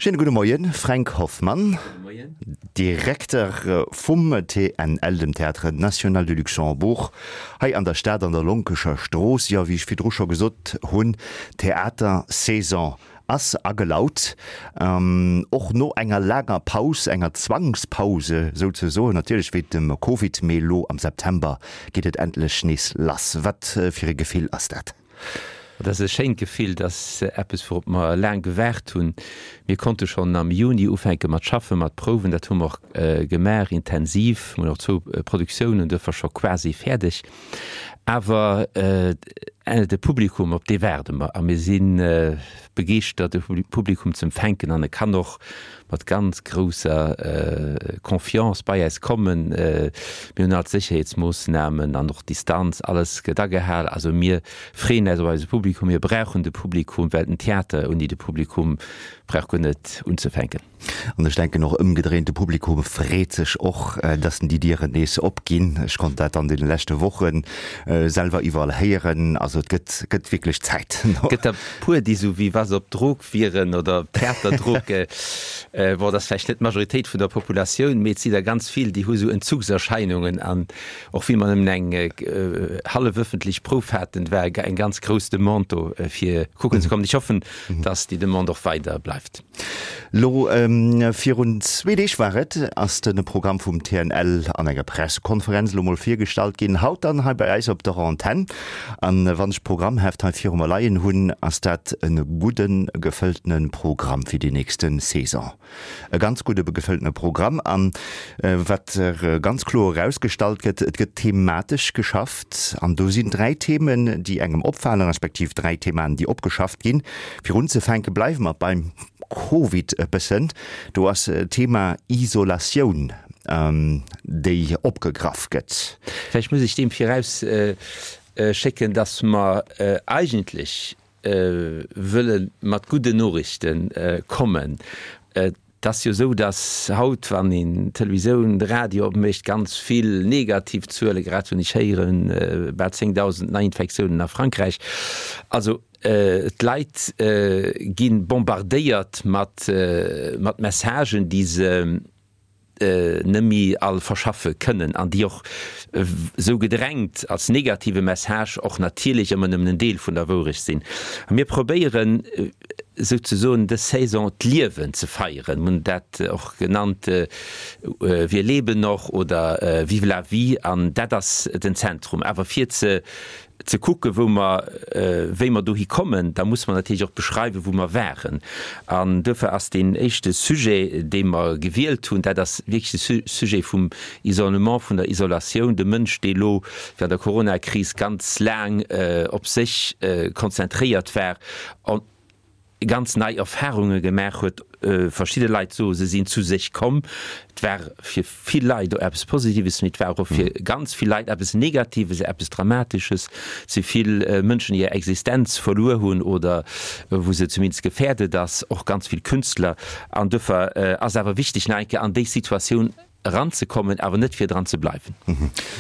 Schéine gudde Moien, Fränk Hoffmann, Direkter vum TNL, dem Théâtre National du Luxembourg, hei an der Stad an der Lonkescher Strooss. Jo, wéi ech virdru scho gesot hunn, d'Theatersaison ass agelaut, och no enger laanger Paus, enger Zwangspause souzesoen, natierlech wéint dem Covid, mee elo am September geet et endlech nees lass. Wat fir e Gefill ass dat? Et ass e schéint Gefill, et ass eppes wourop mer laang gewaart hunn. Mir konnte schonn am Juni ufänke mat schaffen, mat prouwen. Dat hu mer och gemaach, intensiv. Mir hunn och zwou Produktiounen duerfir scho quasi fäerdeg. Awer de Publikum, op dee waarde mer a mir si begeeschtert, de Publikum ze empfänken an e kann och mat ganz grousser Confiance bei äis kommen. Mir hunn all d'Sécherheetsmoossnamen an och d'Distanz, alles gëtt agehal. Also mir freeën äis op eise Publikum. Mir brauchen de Publikum, well den Theater ouni de Publikum brauch guer net unzefänken. An ech denken och ëmgedréint, de Publikum freet sech och, dass déi Dieren nees opginn. Ech konnt dat an deene leschte Woche selwer iwwerall héieren. Also et gëtt, gëtt wierklech Zäit. Gëtt der puer, déi sou wéi wa se op Drog wieren oder Theaterdrog. Bon, dat ass vläicht net d'Majoritéit vun der Populatioun, mee et si der ganz vill, déi hu sou Entzugserscheinungen. An och wéi mer nëmmen eng hallef ëffentlech Prouf haten, war eng ganz grouss Demande do, fir kucken ze kommen. Ech hoffen, dass déi Demande och weider bleift. Lo virun zwee Deeg war et, ass de Programm vum TNL an enger Pressekonferenz elo mol virgestallt ginn. Haut dann hei bei eis op der Antenn. An wann ech d'Programmheft hei viru mer leien hunn, ass dat e gudde gefëlltene Programm fir déi nächste Saison. E ganz gudde gefëlltene Programm. An wat ganz kloer erausgestallt gëtt, et gëtt thematesch geschafft. An do sinn 3 Themen, déi engem opfalen, respektiv 3 Themaen, déi opgeschafft ginn. Fir unzefänke bleiwe mer beim Covid e bëssen. Do ass d'Thema Isolatioun, déi opgegraff gëtt. Vläicht muss ech deem viraus schécken, dass mer eigentlech wëlle mat gudden Noriichte kommen. Et ass jo esou, dass haut, wann een d'Televisioun, de Radio opmécht, ganz vill negativ Zuele, grad hunn ech héieren, bal 10.000 Neiinfektiounen a Frankräich. Also d'Leit gi bombardéiert mat Messagen, déi se net méi all verschaffe kënnen an déi och esou gedrängt als negative Message och natierlech ëmmer nëmmen en Deel vun der Wourecht sinn. A mir probéieren souzesoen dës Saison d'Liewen ze feieren. Mir hunn dat och genannt Wir leben noch oder Vive la vie an dat ass den Zentrum. Awer fir ze ze kucken, wou mer, wéi mer dohi kommen, da musse mer natierlech och beschreiwen, wou mer waren. An duerfir ass deen éischte Sujet, dee mer gewielt hunn, dat ass wierklech de Sujet vum Isolement, vun der Isolatioun, de Mënsch, dee elo während der Coronakris ganz laang op sech konzentréiert war, ganz nei Erfahrunge gemaach huet. Verschidde Leit soe se sinn zu sech komm. Et war fir vill Leit och eppes Positives, mee et war och fir ganz vill Leit eppes Negatives, eppes Dramatesches. Et si vill Mënschen, déi hir Existenz verluer hunn oder wou se zumindest gefäerdet ass, och ganz vill Künstler. An duerfir ass awer wichteg, nach eng Kéier an déi Situatioun eranzekommen, awer net fir dran ze bleiwen.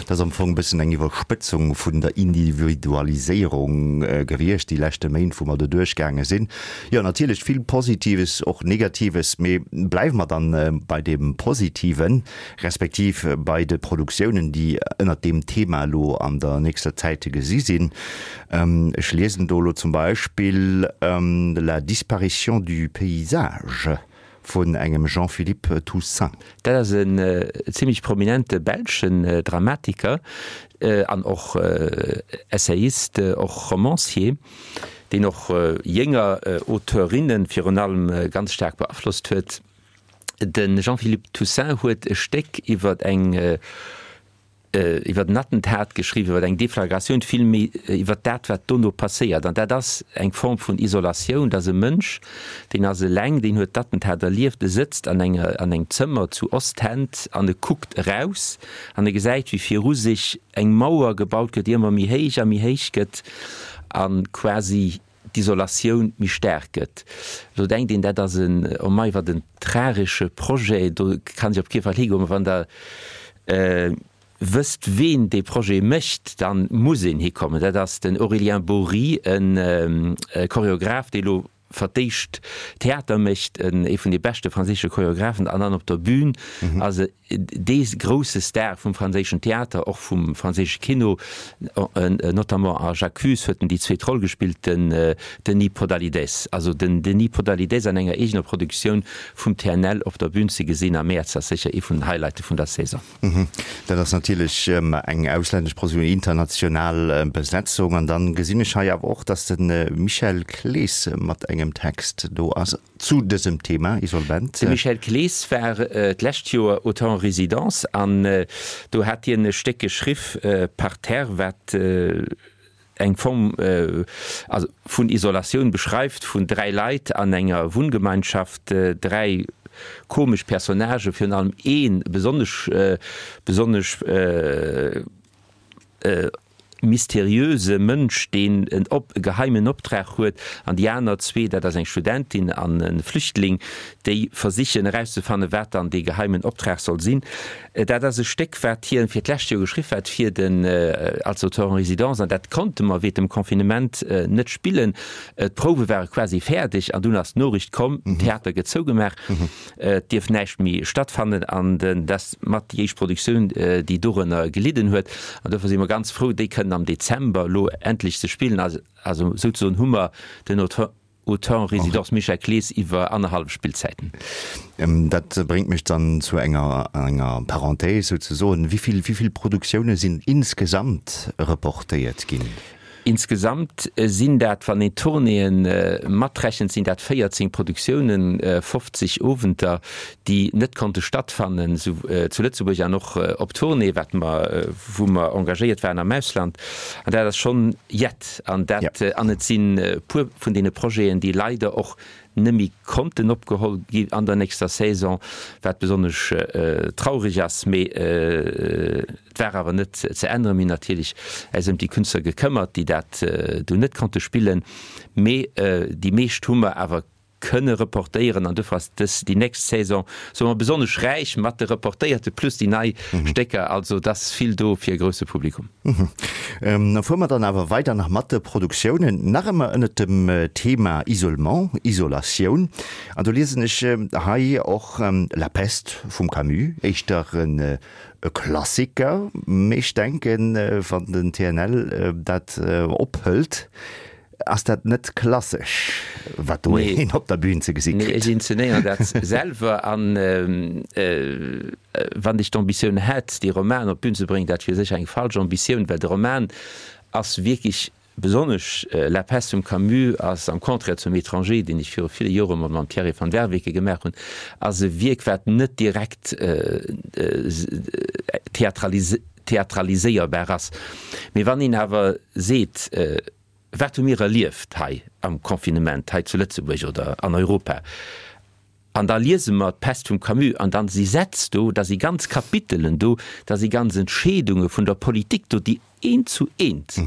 Dat ass am Fong e bëssen eng Iwwerspëtzung vun der Individualiséierung gewiescht, déi leschte Méint, wou mer do duerchgaange sinn. Jo, natierlech vill Positives, och Negatives, mee bleiwe mer dann bei deem Positiven, respektiv bei de Produktiounen, déi ënnert deem Thema elo an der nächster Zäit ze gesi sinn. Ech liesen do elo zum Beispill La disparition du paysage. Vun engem Jean-Philippe Toussaint. Dat ass en zimlech prominente belschen Dramatiker an och Essayist, och Romancier, deen och jénger Auteurinne virun allem ganz staark beaflosst huet. De Jean-Philippe Toussaint huet e Stéck iwwer eng iwwer en Attentat geschriwwen, iwwer eng Deflagratioun, vill méi iwwer dat, wat dono passéiert. An dat ass eng Form vun Isolatioun, dass e Mënsch, deen ass eleng, deen huet d'Attentat erlieft, e sëtzt an enger, an engem Zëmmer zu Ostend an e kuckt eraus an e gesäit, wéi viru sech eng Mauer gebaut gëtt, déi ëmmer méi héich a méi héich gëtt a quasi d'Isolatioun méi staark gëtt. Elo denkt een, dat ass en, oh mei, wat en tragesche Projet, do kann ech op kee Fall higoen. Mä wann Der wësst, ween dee Projet mécht, da muss een hikommen. Dat ass den Aurélien Bory, e Choreograph, dee elo. verdéischt Theater mécht, ee vun de beschte franséische Choreographen an dann op der Bühn ass e dee grousse Star vum franséischen Theater, och vum franséische Kino, notamment a J'accuse huet en déi zweet Roll gespillt, den Denis Podalydès. Also den Denis Podalydès an enger eegener Produktioun vum TNL op der Bühn ze gesinn am Mäerz ass sécher ee vun den Highlighte vun der Saison. Dat ass natierlech eng auslännesch Produktioun, international Besetzung. An dann gesinn ech hei awer och, dass de Michel Clees mat engem Text do ass zu dësem Thema Isolvent. De Michel Clees war d'lescht Joer Auteur en résidence an do hat hien e Stéck geschriff, Parterre, wat eng Form also vun Isolatioun beschreift vun 3 Leit an enger Wunngemeinschaft, 3 komesch Personnagen, virun allem ee besonnesch besonnesch mysteriöse Mënsch, deen en op e geheimen Optrag huet, an déi aner zwee, dat ass eng Studentin an e Flüchtling, déi versichen erauszefannen, wat dann dee geheimen Optrag soll sinn. Dat ass e Stéck, wat hien fir d'lescht Joer geschriff hat fir den als Auteur en résidence, an dat konnte mer wéint dem Confinement net spillen. D'Prouwe ware quasi fäerdeg an dunn ass d'Noriicht komm, den Theater gëtt zougemaach, et dierf näischt méi stattfannen an dat ass mat déi éischt Produktioun, déi dorënner gelidden huet. An dofir si mer ganz frou, déi kënnen am Dezember elo endlech ze spillen. Also souzesoen hu mer den Auteur Auteur en résidence Michel Clees iwwer annerhallef Spillzäiten. Dat bréngt mech dann zu enger enger Parenthèse souzesoen. Wéi vill, wéi vill Produktioune sinn insgesamt reportéiert ginn? Insgesamt sinn dat, wann een d'Tournéeë matrechent, sinn dat 14 Produktiounen, 50 Owenter, déi net konnte stattfannen, sou zu Lëtzebuerg an och op Tournée, wat mer, wou mer engagéiert waren am Ausland. An dat ass schonn jett. An dat, an et sinn e puer vun deene Projeten, déi leider och net méi konnten opgeholl gi an der nächster Saison, wat besonnesch traureg ass. Mee et war awer net ze änneren. Mir hunn natierlech äis ëm déi Künstler gekëmmert, déi dat do net konnte spillen. Mee déi meescht hu mer awer kënne reportéieren an dofir ass dës, déi nächst Saison, soe mer, besonnesch räich mat de reportéierte plus déi nei Stécker. Also et ass vill do fir e grousse Publikum. Da fuere mer dann awer weider nach mat de Produktiounen, nach ëmmer ënnert dem Thema Isolement, Isolatioun. An do liesen ech hei och La Peste vum Camus, éischter e Klassiker, mee ech denken, wann den TNL dat ophëlt, Ass dat net klassesch, wat do een op der Bühn ze gesi kritt? Nee, ech inzenéieren dat selwer. An wann ech d'Ambitioun hätt, dee Roman op d'Bühn ze bréngen, dat wier sécher eng falsch Ambitioun, well de Roman ass wierklech, besonnesch La peste vum Camus ass, am Contraire zum Étranger, deen ech viru ville Jore mol mam Thierry van Werveke gemaach hunn, ass e Wierk, wat net direkt theatraliséierbar ass. Mee wann een awer seet, Wat hu mir erlieft hei am Confinement, hei zu Lëtzebuerg oder an Europa? An da liese mer d'Pest vum Camus an dann si Sätz do, da si ganz Kapitelen do, da si ganz Entscheedunge vun der Politik do, déi eent zu eent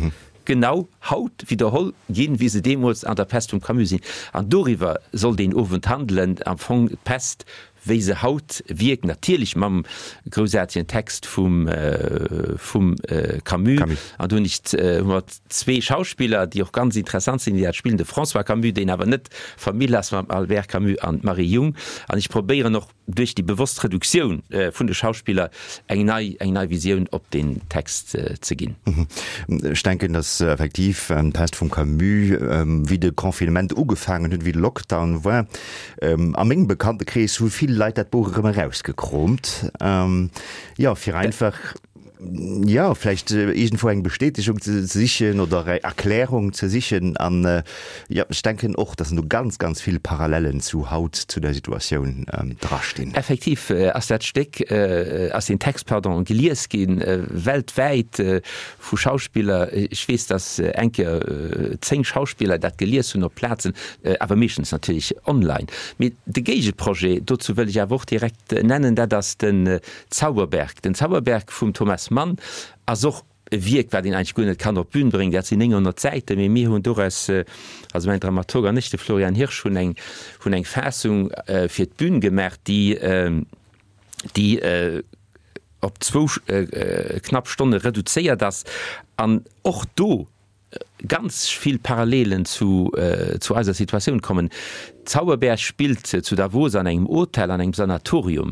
genau haut widderholl ginn, wéi se deemools an der Pest vum Camus sinn. An doriwwer soll deen Owend handelen, am Fong d'Pest wéi se haut wierkt, natierlech mam groussaartegen Text vum vum Camus. An do hunn ech hu mer zwee Schauspiller, déi och ganz interessant sinn, déi dat spillen, de François Camus, deen awer net Famill ass mam Albert Camus, an d'Marie Jung. An ech probéieren och duerch déi bewosst Reduktioun vun de Schauspiller eng nei eng nei Visioun op deen Text ze ginn. Ech denken, datt effektiv d'Pest vum Camus, wéi de Confinement ugefaangen huet, wéi de Lockdown war, A mengem Bekanntekrees hu vill Leit dat Buch erëm erausgekroomt, jo, fir einfach, jo, vläicht iergendwou eng Bestätegung ze sichen oder eng Erklärung ze sichen. An, jo, ech denken och, dass do ganz, ganz vill Parallellen zu haut, zu der Situatioun drastinn. Effektiv ass dat Stéck, ass deen Text, pardon, gelies gi weltwäit vu Schauspiller. Ech weess, dass eng Kéier 10 Schauspiller dat gelies hunn op Plazen, awer meeschtens natierlech online. Mee de Géigeprojet dozou wëll ech awer och direkt nennen, dat ass den Zauberberg. Den Zauberberg vum Thomas Mann ass och e Wierk, wat een eigentlech guer net kann op d'Bün bréngen. Dat sinn 900 Säiten, mee mir hunn doraus, also mäin Dramaturg an ech, de Florian Hirsch, hunn eng, hunn eng Faassung fir d'Bün gemaach, déi, déi op zwou knapp Stonne reduzéiert ass. An och do. ganz vill Parallelen zu zu eiser Situatioun kommen. Zauberberg spillt zu Davos an engem Hotel, an engem Sanatorium.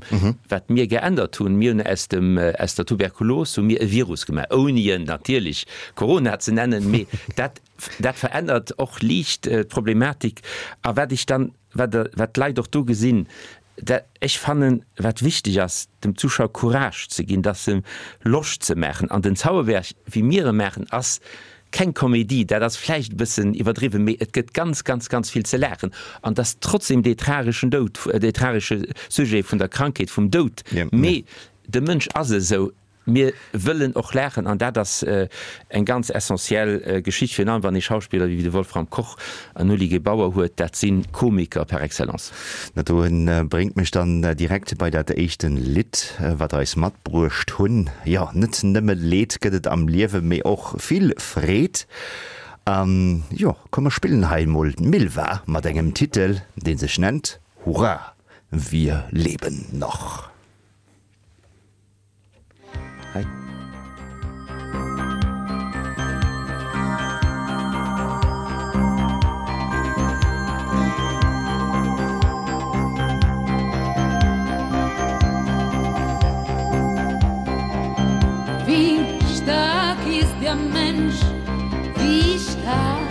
Wat mir geännert hunn, mir hunn aus dem aus der Tuberkulos hu mir e Virus gemaach, ouni en natierlech Corona ze nennen, mee dat dat verännert och liicht d'Problematik. A wat ech dann, wat wat d'Leit och do gesinn, Dat, ech fannen, wat wichteg ass, dem Zuschauer Courage ze ginn, dass em Loscht ze maachen. An den Zauberberg, wéi mir e maachen, ass keng Komedie, dat ass vläicht e bëssen iwwerdriwwen, mee et gëtt ganz, ganz, ganz vill ze laachen. An et ass trotzdem dee trageschen Doud, dee tragesche Sujet vun der Krankheet, vum Doud, mee de Mënsch ass esou. Mir wëllen och laachen an dat ass eng ganz essentiell Geschicht, virun allem wann ee Schauspiller wéi de Wolfram Koch an Oli Gebauer huet, dat si Komiker par excellence. Dat do bréngt mech dann direkt bei dat éischten Lidd, wat der eis matbruecht hunn. Jo, net nëmme Leed gëtt et am Liewe, mee och vill Freed. An jo, komm mer spillen hei emol d'Milva mat engem Titel, dee sech nennt Hurra, wir leben noch. Hei. Wie stark ist der Mensch, wie stark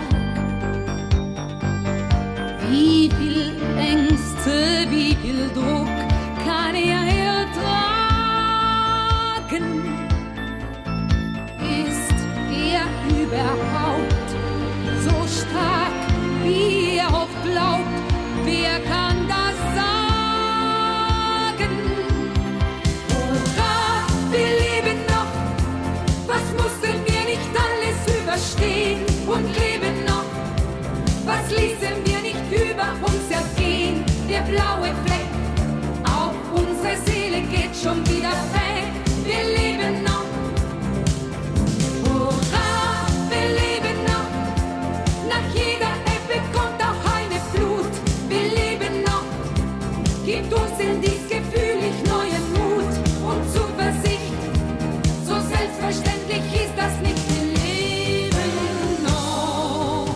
Wie viel Ängste, wie viel Druck kann er ertragen? Ist er überhaupt so stark, wie er oft glaubt? Wer kann das sagen? Hurra, wir leben noch! Was mussten wir nicht alles überstehen und leben noch? Was ließen wir nicht über uns ergehen? Der blaue Fleck auf unsere Seele geht schon wieder weg. Wir leben noch. Hurra, wir leben noch. Nach jeder Ebbe kommt auch eine Flut. Wir leben noch. Gibt uns in dies Gefühl ich neuen Mut und Zuversicht. So selbstverständlich ist das nicht. Wir leben noch.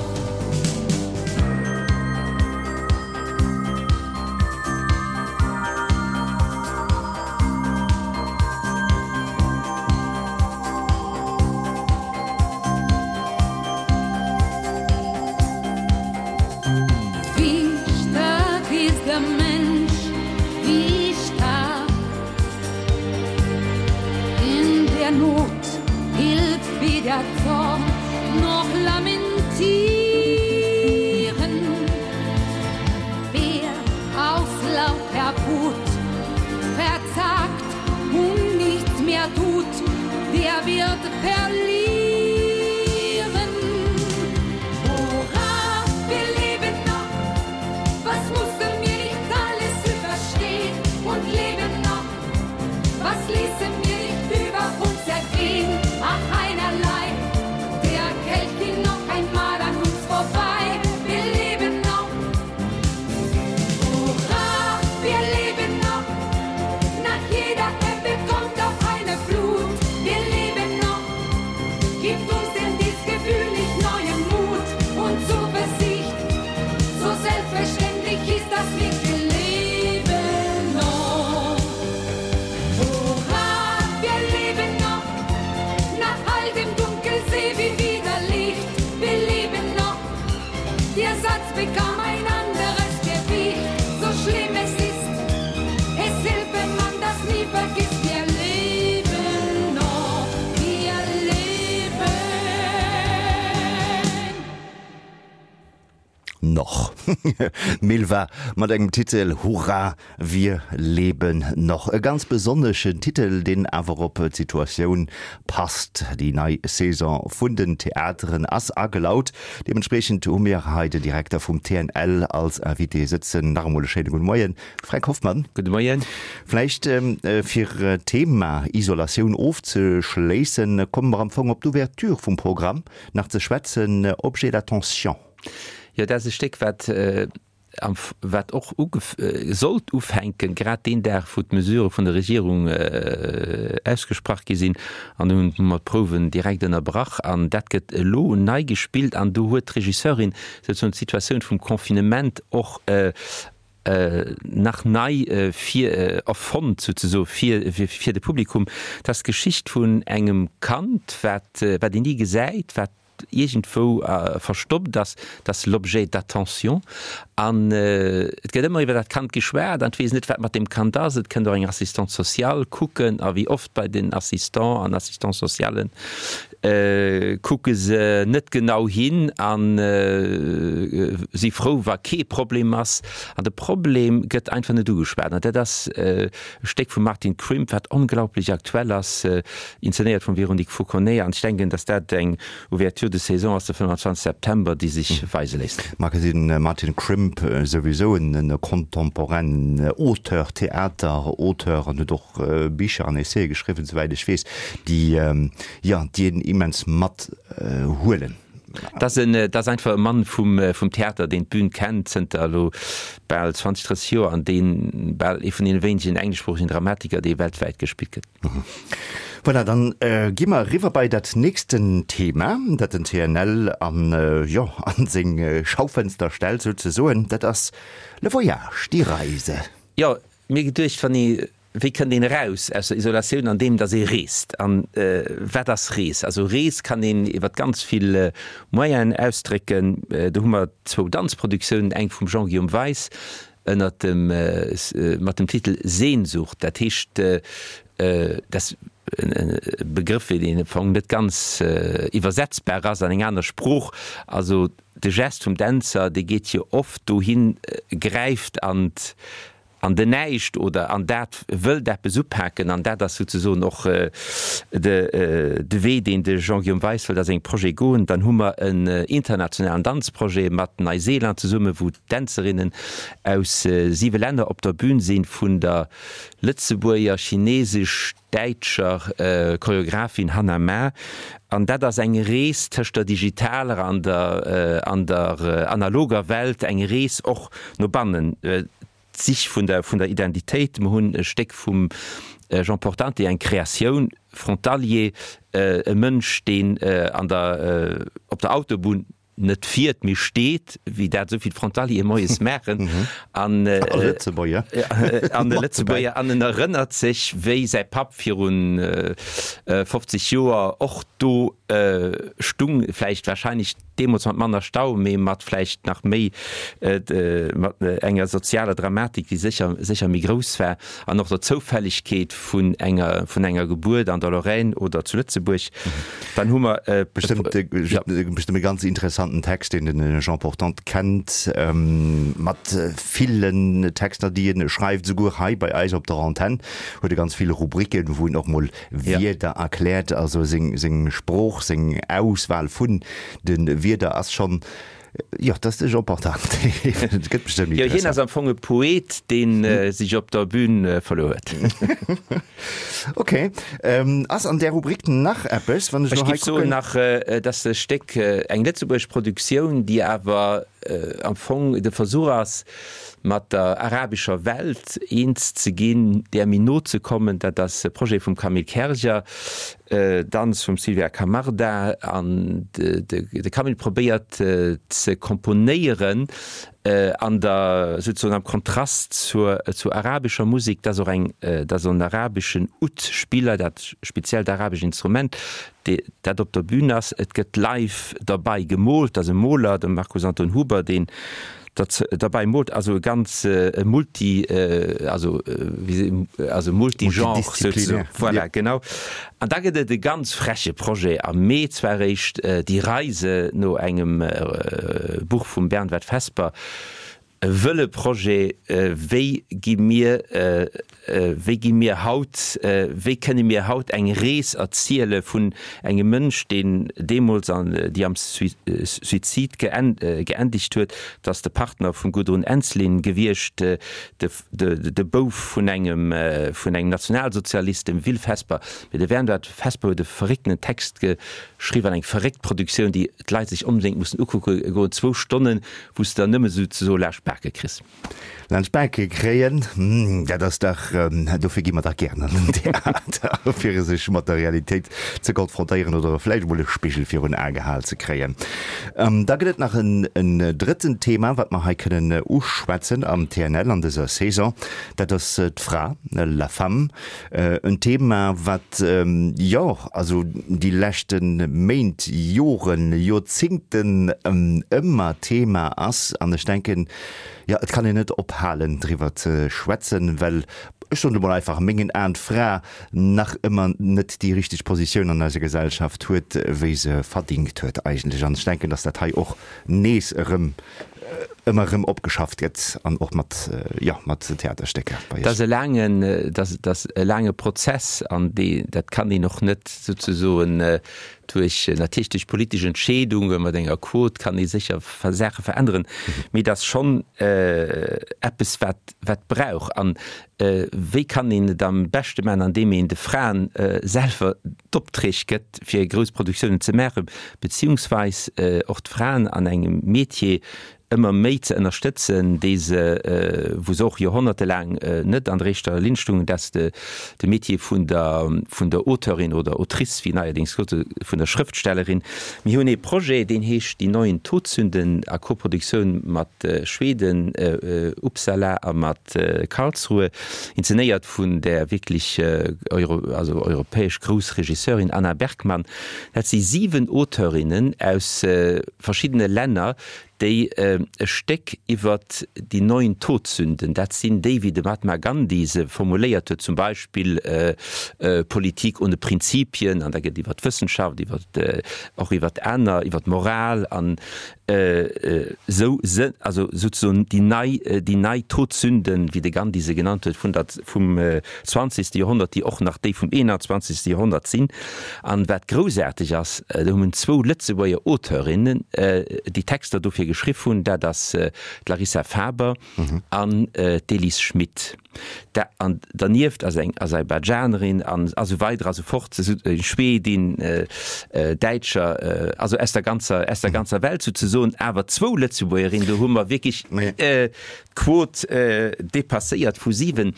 Wie stark ist der Mensch, wie stark in der Not hilft weder Zorn noch lamentieren. Wer aus lauter Wut verzagt und nichts mehr tut, der wird verlieren. Hurra, wir leben noch, was mussten wir nicht alles überstehen und leben noch? Was ließen wir nicht über uns ergehen? Ach, einerlei, der Kelch ging noch einmal an uns vorbei. Wir leben noch. Hurra, wir leben noch. Nach jeder Ebbe kommt auch eine Flut. Wir leben noch. Gibt uns denn dies Gefühl nicht neuen Mut und Zuversicht? So selbstverständlich ist das nicht, wir leben noch. Hurra, wir leben noch. Nach all dem Dunkelsee wie wieder Licht. Wir leben noch. Der Satz bekam ein anderes Gewicht. So schlimm es ist, es hilft, wenn man das nie vergisst. Wir leben noch, wir leben. Noch. Milva mat engem Titel Hurra, wir leben noch. E ganz besonneschen Titel, deen awer op d'Situatioun passt. Déi nei Saison vun den Theateren ass agelaut. Deementspriechend hu mir hei den Direkter vum TNL als Invité sëtzen. Nach emol e schéine gudde Moien, Fränk Hoffmann. Gudde Moien. Vläicht fir d'Thema Isolatioun ofzeschléissen, komme mer am Fong op d'Ouverture vum Programm nach ze schwätzen, Objet d'attention. Jo, dat ass e Stéck, wat. wat och sollt ufänken, grad deen Dag, wou d'Mesurë vun der Regierung ausgesprach gi sinn. An dunn hu mer d'Prouwen direkt ënnerbrach an dat gëtt elo nei gespillt. An do huet d'Regisseurin souzesoen d'Situatioun vum Confinement och nach nei vir erfonnt souzesoe fir fir de Publikum. Dat ass d'Geschicht vun engem Kand, wat wat een ni gesäit, wat iergendwou verstoppt ass, dat ass l'objet d'attention. An et gëtt ëmmer iwwer dat Kand geschwat an et weess net, wat mat deem Kand ass. Et kënnt och eng Assistante sociale kucken a wéi oft bei den Assistants an Assistants socialen kucke se net genau hin a si frou, wa kee Problem ass. An de Problem gëtt einfach net ugeschwat. An dat ass e Stéck vum Martin Crimp, wat onglaublech aktuell ass, inzenéiert vum Véronique Fauconnet. An ech denken, datt dat eng Ouverture de saison ass de 25 September, déi sech weise léisst. Magazine Martin Crimp, souwisou en contemporainen Auteur, Theater Auteur an huet och Bicher an Essaie geschriwwen, souwäit ech weess, déi, jo, déi een immens mat huelen. Dat ass en, dat ass einfach e Mann vum, vum Theater, deen d'Bün kennt zënter elo bal 20, 30 Joer an deen bal ee vun deene wéinegen engleschsproochegen Dramatiker, dee weltwäit gespillt gëtt. Voilà, dann gi mer eriwwer bei dat nächsten Thema, dat den TNL an, jo, an seng Schaufenster stellt souzesoen. Dat ass le Voyage, die Reise. Jo, mir geduecht, wann ee, wéi kënnt een eraus aus der Isolatioun, andeem datt ee reest. An wat ass Rees? Also Rees kann een iwwer ganz vill Moyenen ausdrécken. Do hu mer zwou Danzproduktiounen, eng vum Jean-Guillaume Weis, ënnert dem mat dem Titel Sehnsucht, dat heescht dat ass e Begrëff deen am Fong net ganz iwwersetzbar ass an eng aner Sprooch, also de Gest vum Dänzer dee geet jo oft dohin, gräift an an den Näischt oder an dat wëllt eppes upaken an dat ass souzesoen och de Wee deen de Jean-Guillaume Weis wëllt a sengem Projet goen. Dann hu mer en internationalen Danzprojet mat Neuseeland zesumme wou Dänzerinnen aus siwe Länner op der Bün sinn, vun der Lëtzebuerger, chinesesch, däitscher Choreographin Hanna Ma. An dat ass eng Rees tëscht der digitaler an der an der analoger Welt, eng Rees och no bannen, d'Sich vun der vun der Identitéit. Mer hunn e Stéck vum Jean Portante, eng Kreatioun, Frontalier, e Mënsch, deen an der op der Autobunn net fiert, mee steet, wéi dat esou vill Frontaliere moies maachen, an A Lëtzebuerger. An de Lëtzebuerger. An en erënnert sech, wéi säi Papp virun 50 Joer och do stung, vläicht wahrscheinlech deemools mat manner Stau, mee mat vläicht nach méi, mat enger sozialer Dramatik, déi sécher, sécher méi grouss war, an och der Zoufällegkeet vun enger, vun enger Gebuert an der Lorraine oder zu Lëtzebuerg. Dann hu mer bestëmmt e ganz interessanten Text, deen de Jean Portante kennt, mat villen Texter, déi en schreift. Esouguer hei bei eis op der Antenn huet e ganz vill Rubriken, wou en och mol Wierder erkläert. Also seng Sprooch, seng Auswahl vun de Wierder ass schonn Jo, dat ass de Jean Portante. Et gëtt bestëmmt Jo, hien ass am Fong e Poet, dee sech op der Bühn verluer huet. Ok. Ass an där Rubrik nach eppes, wann ech elo hei kucken? Ech géif soen nach, et ass e Stéck, eng lëtzebuergesch Produktioun, déi awer am Fong de Versuch ass, mat der arabescher Welt eens ze ginn, där méi no ze kommen. Dat ass e Projet vum Camille Kerger. Danz vum Sylvia Camarda an de Camille probéiert ze komponéieren an der souzesoen am Kontrast zur zur arabescher Musek. Dat ass och eng dat ass en arabeschen Oud-Spiller, dat speziellt arabescht Instrument, dat op der Bühn ass. Et gëtt live derbei gemoolt, dat ass e Moler, de Markus Anton Huber, deen Dat derbäi moolt, also e ganz multi, also also multigenre souzesoen. Voilà, genau. An da gëtt et e ganz freche Projet am Mee zwar eréischt, Die Reise no engem Buch vum Bernward Vesper, e wëlle Projet, wéi gi mir, Wéi gi mir haut, wéi kënne mir haut eng Rees erziele vun engem Mënsch, deen deemools an déi am Suizid geendegt huet? Dat ass de Partner vum Gudrun Ensslin gewiescht, de Bouf vun engem vun engem Nationalsozialist, dem Will Vesper. Mee de Wernward Vesper huet e verrécktenen Text geschriwwen an eng verréckt Produktioun, déi d'Leit sech onbedéngt mussen ukucke goen, zwou Stonnen, wou s de der nëmme souzesoe laascht d'Bak. d'Bake kriss. Laanscht d'Bake kréien, dat ass dach, dofir gi mer dach gären an den Theater, fir sech mat der Realitéit ze konfrontéieren oder vläicht emol e Spigel virun Ae gehal ze kréien. Da gëtt et nach en drëtten Thema, wat mer hei kënnen uschwätzen am TNL an dëser Saison, dat ass d'Fra, la femme. En Thema, wat, jo, also déi leschte Méint, Joren, Joerzingten ëmmer Thema ass. An ech denken, Jo, et kann een net ophalen driwwer ze schwätzen, well, ech soen et emol einfach, a mengen Aen d'Fra nach ëmmer net déi richteg Positioun an eiser Gesellschaft huet, wéi se verdingt huet eigentlech. An ech denken, datt dat hei och nees erëm ëmmer erëm opgeschafft gëtt an och mat, jo, mat Theaterstécker bei Dat ass e laangen, dat ass e laange Prozess an dee, dat kann een och net souzesoen Duerch, natierlech duerch politesch Entscheedunge mat enger Quot kann ee sécher Saache veränneren, mee et ass schonn eppes, wat wat brauch. An wéi kann een et am beschte maachen? Andeem een de Fraen selwer d'Opträg gëtt, fir grouss Produktiounen ze maachen, beziehungsweis och d'Fraen an engem Metier ëmmer méi ze ënnerstëtzen, déi se, wou se och joerhonnertelaang net an der éischter Linn stungen, dat ass de de Métier vun der vun der Auteurin oder Autrice, wéi neierdéngs gesot gëtt, vun der Schrëftstellerin. Mir hunn ee Projet, deen heescht Die neuen Todsünden a Koproduktioun mat Schweden, Uppsala a mat Karlsruhe, inzenéiert vun där wierklech euro also europäesch grouss Regisseurin Anna Bergman. Dat si 7 Auteurinnen aus verschiddene Länner, déi e Stéck iwwer déi neun Todsünden, dat sinn déi, wéi de Mahatma Gandhi se formuléiert huet, zum Beispill Politik ohne Prinzipien, an da gëtt iwwer d'Wëssenschaft, iwwer och iwwer aner, iwwer d'Moral an esou, also souzesoen déi nei, déi nei Todsünden, wéi de Gandhi se genannt huet, vun der, vum zwanzegste Joerhonnert, déi och nach déi vum 21. Joerhonnert sinn. An wat groussaarteg ass, do hunn zwou Lëtzebuerger Auteurinnen déi Texter dofir geschriff hunn, dat ass d'Larissa Faber an d'Elise Schmit. An dernieft ass eng Aserbaidschanerin an esou weider a sou fort, eng Schwedin, Däitscher, also aus der ganzer, aus der ganzer Welt souzesoen, awer zwou Lëtzebuergerin, do hu mer wierklech d'Quot dépasséiert vu 7.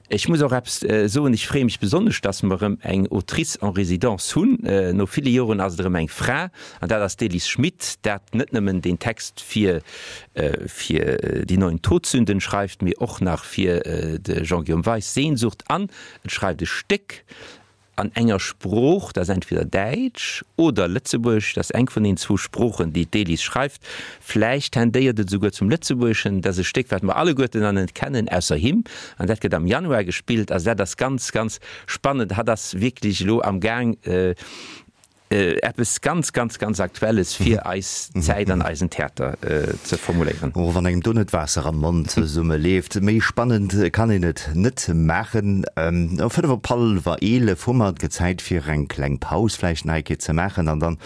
Ech muss och eppes soen, ech freeë mech besonnesch, dass mer erëm eng Autrice en résidence hunn. No ville Joren ass et erëm eng Fra, an dat ass d'Elise Schmit, dat net nëmmen deen Text fir fir Die neuen Todsünden schreift, mee och nach fir de Jean-Guillaume Weis Sehnsucht an et schreift e Stéck an enger Sprooch, dat ass entweder Däitsch oder Lëtzebuergesch, dat ass eng vun den zwou Sproochen, déi d'Elise schreift, vläicht tendéiert et esouguer zum Lëtzebuergeschen, dat ass e Stéck, wat mer alleguerten an net kennen, ausser him, an dat gëtt am Januar gespillt. Also dat ass ganz, ganz spannend. Hatt ass wierklech elo am Gaang, Eppes ganz, ganz, ganz Aktuelles fir eis Zäit an eisen Theater ze formuléieren. Och wann engem do net d'Waasser am Mond zesumme leeft, méi spannend kann een et net maachen. Um 5 op hallwer 11 hu mer et Zäit fir eng kleng Paus vläicht nach eng Kéier ze maachen an dann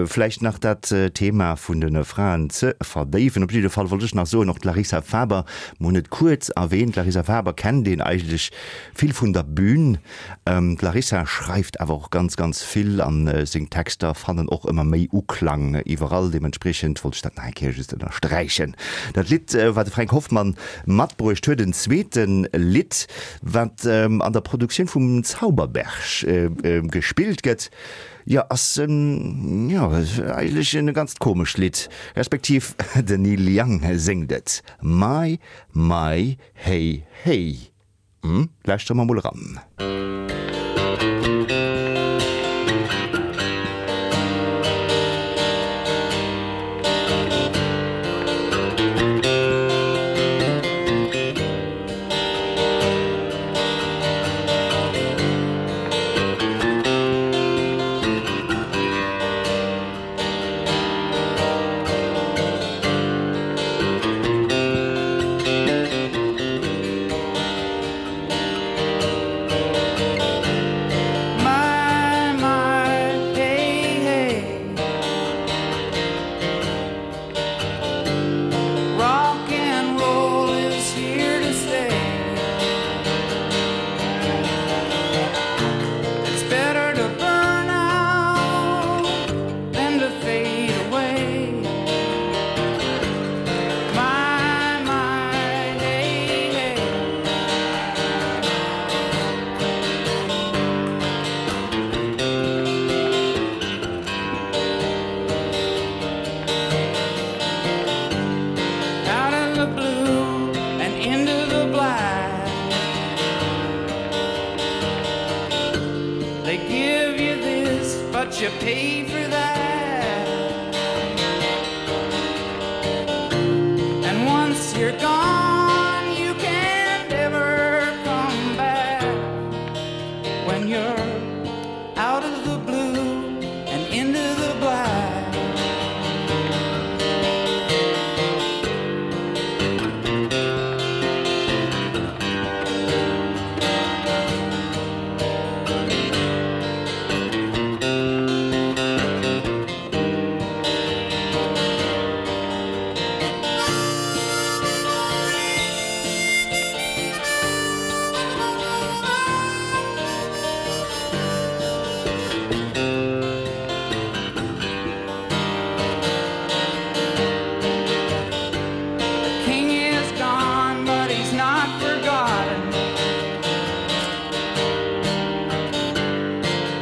vläicht nach dat Thema vun de Fraen ze verdéiwen. Op jidde Fall wollt ech nach soen, och d'Larissa Faber, mer hunn et kuerz erwähnt, d'Larissa Faber kennt een eigentlech vill vun der Bühn. D'Larissa schreift awer och ganz, ganz vill an seng Texter fannen och ëmmer méi Uklang iwwerall. Deementspriechend wollt ech dat nach eng Kéier just ënnersträichen. Dat Lidd, wat de Fränk Hoffmann matbruecht huet, en zweete Lidd, wat an der Produktioun vum Zauberberg gespillt gëtt, jo, ass jo eigentlech e ganzt komescht Lidd, respektiv den Neil Young séngt et, My, my, hey, hey. Hm, lauschtere mer mol eran. But you pay for that. And once you're gone, you can't ever come back. When you're out of the blue and into the black. The king is gone, but he's not forgotten.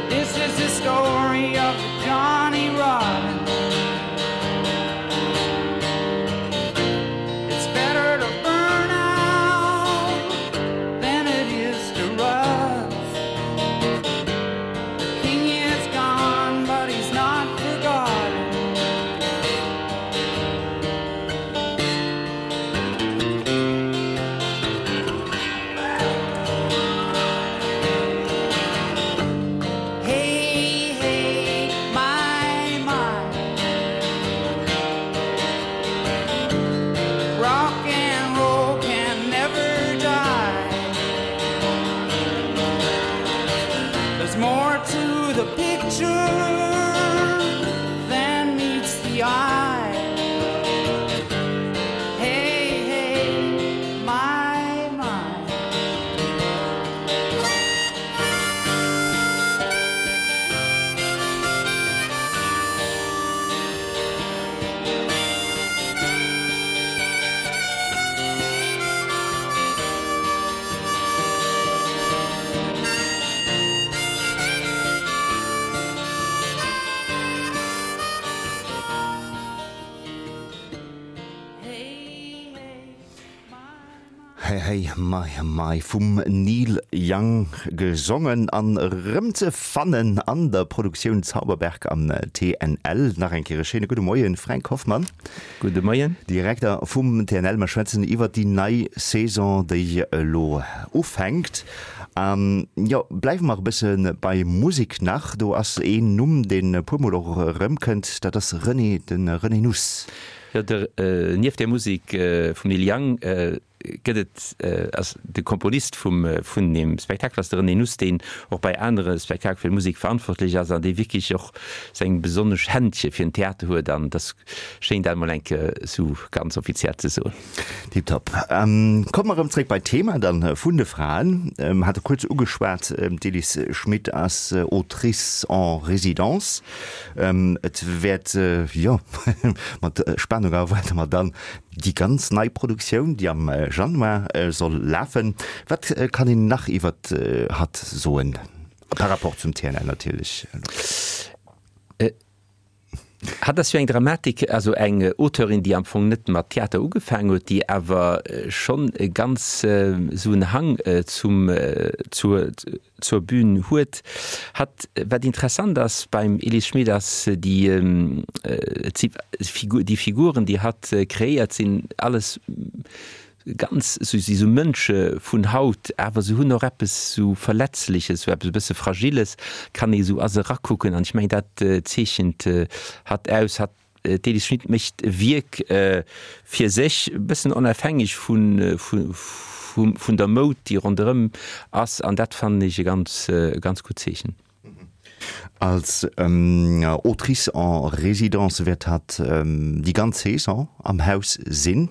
This is the story of Johnny Rotten. It's better to burn out than it is to rust. The king is gone, but he's not forgotten. Hey, hey, my, my. Rock and roll can never die. There's more to the picture than meets the eye. Hey, hey, my, my. Hey hey my my vum Neil Young gesongen an erëm ze fannen an der Produktioun Zauberberg am TNL. Nach eng Kéier e schéine gudde Moien Fränk Hoffmann. Gudde Moien. Direkter vum TNL. Mer schwätzen iwwert déi nei Saison, déi elo ufänkt. An jo, bleiwe mer e bësse bei Musek nach. Do ass een Numm, deen e puermol och erëmkënnt, dat ass René, de René Nuss. Jo, de, nieft der Musek vum Neil Young gëtt et, ass de Komponist vum, vun deem Spektakel ass de René Nuss, deen och bei anere Spektakel fir d'Musek verantwortlech ass an dee wierklech och seng besonnesch Händche fir den Theater huet an et ass schéin dat emol eng Kéier esou ganz offiziell ze soen. Tiptop. Komme mer erëm zréck bei d'Thema dann vun de Fraen. Hate kuerz ugeschwat, d'Elise Schmit ass Autrice en résidence. Et wäert, jo, mat Spanung erwaarde mer dann Déi ganz nei Produktioun, déi am Januar soll lafen. Wat kann een nach iwwert hatt soen, par rapport zum TNL natierlech? Hatt ass jo eng Dramatik, also eng Auteurin, déi am Fong net mat Theater ugefaangen huet, déi awer schonn e ganz esou en Hang zum, zur, zur Bühn huet. Hatt, wat interessant ass beim Elise Schmit ass déi, et si déi Figuren, déi hatt kreéiert, sinn alles ganz, si sou Mënsche vun haut, awer se hunn och eppes sou Verletzleches, sou eppes e bësse Fragiles, kann ee sou a se erakucken an ech mengen dat zeechent hatt aus. Hatt D'Elise Schmit mécht e Wierk fir sech, e bëssen onafhängeg vun der Moud, déi ronderëm ass, an dat fannen ech e ganz, ganz gutt Zeechen. Als Autrice en résidence wäert hatt déi ganz Saison am Haus sinn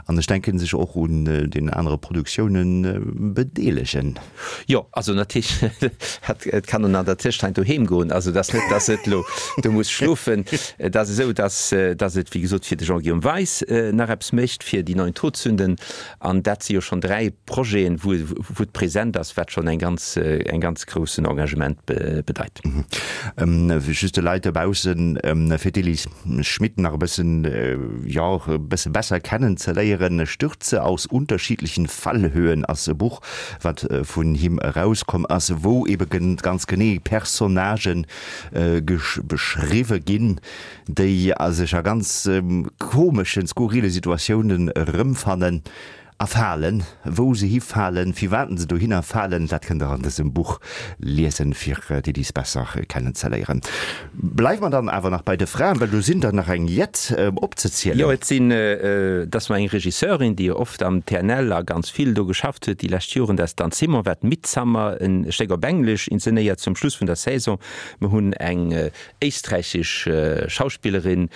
an ech denken sech och un den anere Produktioune bedeelegen. Jo, also natierlech, et kann en an der Tëschzäit doheem goen. Also et ass net, datt et elo do muss schlofen. Et ass esou, datt, datt et, wéi gesot, fir de Jean-Guillaume Weis nach eppes mécht, fir déi neuen Todsünden. An dat si jo schonn 3 Projeten, wou, wou et present ass, wat schonn eng ganz, eng ganz groussen Engagement bedeit. Just de Leit dobaussen, fir d'Elise Schmit nach e bëssen, jo, e bësse besser kennen ze léieren, Stürze aus unterschiedlichen Fallhöhen ass e Buch, wat vun him erauskomm ass, wou ebe ganz genee Personnagen beschriwwe ginn, déi sech a ganz komeschen, skurrile Situatiounen erëmfannen. A falen, wou se hifalen, firwat se dohinner falen, dat kënnt der an dësem Buch liesen, fir d'Elise besser kennenzeléieren. Bleiwe mer dann awer nach bei de Fraen, well do sinn der nach eng jett opzezielen. Jo, et sinn, et ass mer eng Regisseurin, déi jo oft am TNL a ganz vill do geschafft huet déi lescht Joren, dat ass d'Anne Simon, wat Midsummer, en Stéck op Englesch, inzenéiert zum Schluss vun der Saison. Mer hunn eng éisträichesch Schauspillerin,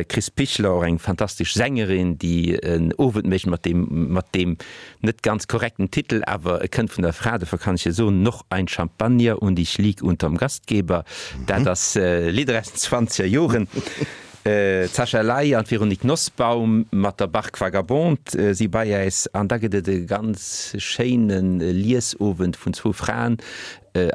Chris Pichler, och eng fantastesch Sängerin, déi en Owend mécht mat deem, mat deem net ganz korrekten Titel, awer e kënnt vun der Fra, dofir kann ech e soen, Noch ein Champagner und ich lieg unterm Gastgeber. Dat ass Lidder aus den zwanzeger Joren. D'Sascha Ley an d'Véronique Nosbaum mat der Barque Vagabonde si bei äis. An da gëtt et e ganz schéine Liesowend vun zwou Fraen,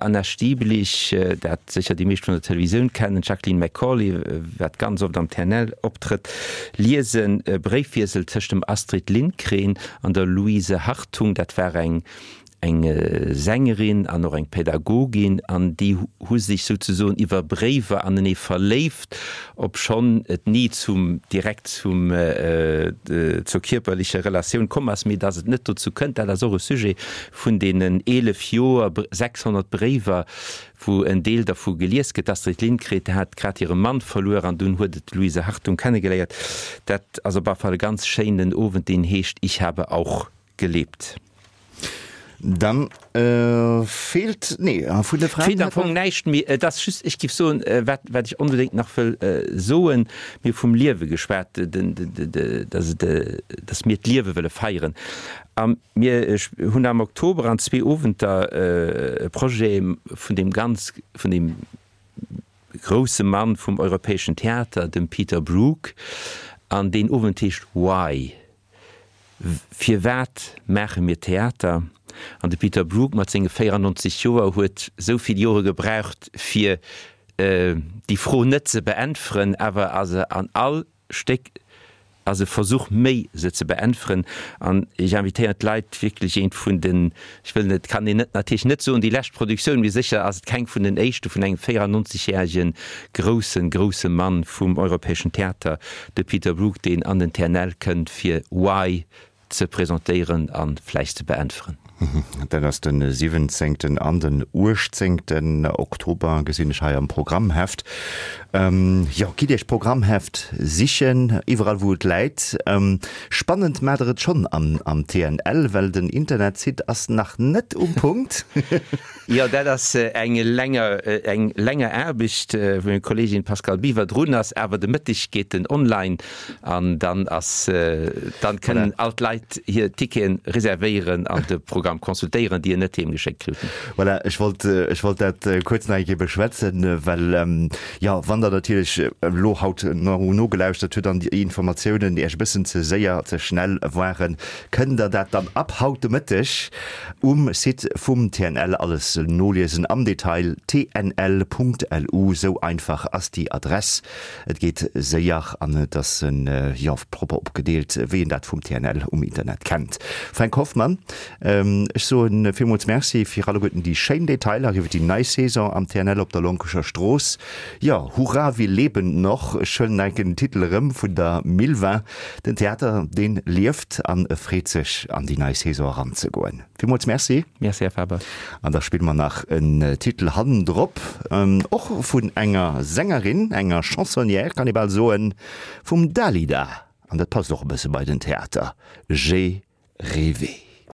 Anna Stiblich, dat sécher déi meescht vun der Televisioun kennen, d'Jacqueline McCauley, wat ganz oft am TNL optrëtt, liesen e Bréifwiessel tëscht dem Astrid Lindgren an der Louise Hartung, dat war eng eng Sängerin an och eng Pädagogin, an déi hu sech souzesoen iwwer Bréiwer anenee verléift, obschonn et ni zum direkt zum zur kierperlecher Relatioun komm ass. Mee datt et net dozou kënnt, dat ass och e Sujet Vun deenen 11 Joer, 600 Bréiwer, wou en Deel dervu gelies gëtt. D'Astrid Lindgren hat grad hire Mann verluer an dunn huet et d'Louise Hartung kennegeléiert. Dat ass op alle Fall e ganz schéinen Owend, deen heescht Ich habe auch gelebt. Dann feelt, nee, vun de Fraen. Feelt am Fong näischt méi. Et ass just, ech géif soen, wat, wat ech onbedéngt nach wëll soen, mir hu vum Liewe geschwat, dass et, dass mir d'Liewe wëlle feieren. A Mir hunn am Oktober an zwee Owenter e Projet vun deem ganz, vun deem grousse Mann vum europäeschen Theater, dem Peter Brook, an deen Owend heescht Why? Firwat maache mir Theater? An de Peter Brook mat senge 94 Joer huet esou vill Jore gebraucht, fir déi Fro net ze beäntweren, awer ass e an all Stéck ass e Versuch méi se ze beäntweren an ech invitéieren d'Leit wierklech eent vun den, ech wëll net, kann een net natierlech net soen déi lescht Produktioun, mee sécher ass et keng vun den éischte vun engem 94 järege groussen, grousse Mann vum europäeschen Theater, de Peter Brook, deen an den TNL kënnt fir Why ze presentéieren a vläicht ze beäntweren. Dat ass de 17. an den 18. Oktober, gesinn ech hei am Programmheft. Jo, gitt Iech d'Programmheft sichen, iwwerall wou et läit. Spannend maacht der et schonn am TNL, well den Internetsite ass nach net um Punkt. Jo, dat ass eng länger, eng länger Aarbecht, wou meng Kolleegin Pascale Biwer drun ass. Awer de Mëtteg geet en online an dann ass, dann kënnen all d'Leit hir Ticketen reservéieren an de Programm consultéieren, déi en net heem geschéckt kruten. Voilà, ech wollt, ech wollt dat kuerz nach eng Kéier beschwätzen, well, jo, wann Der natierlech elo haut nogelauschtert hutt an déi Informatiounen Iech e bëssen ze séier, ze schnell waren, kënnt Der dat dann ab haut de Mëtteg um Site vum TNL alles noliesen am Detail, tnl.lu, sou einfach ass déi Adress. Et geet séier an et ass jo propper opgedeelt, wéi een dat vum TNL um Internet kennt. Fränk Hoffmann, ech soen villmools Merci fir alleguerten déi schéin Detailer iwwer déi nei Saison am TNL op der Lonkescher Strooss. Jo, Hurra, wir leben noch, ech huelen enken den Titel erëm vun der Milva. Den Theater, deen lieft an e freet sech an déi nei Saison eranzegoen. Villmools Merci. Merci, Här Faber. An da spille mer nach en Titel hannendrop, och vun enger Sängerin, enger Chansonnière kann ee bal soen, vum Dalida. An dat passt och e bësse bei den Theater, J'ai rêvé.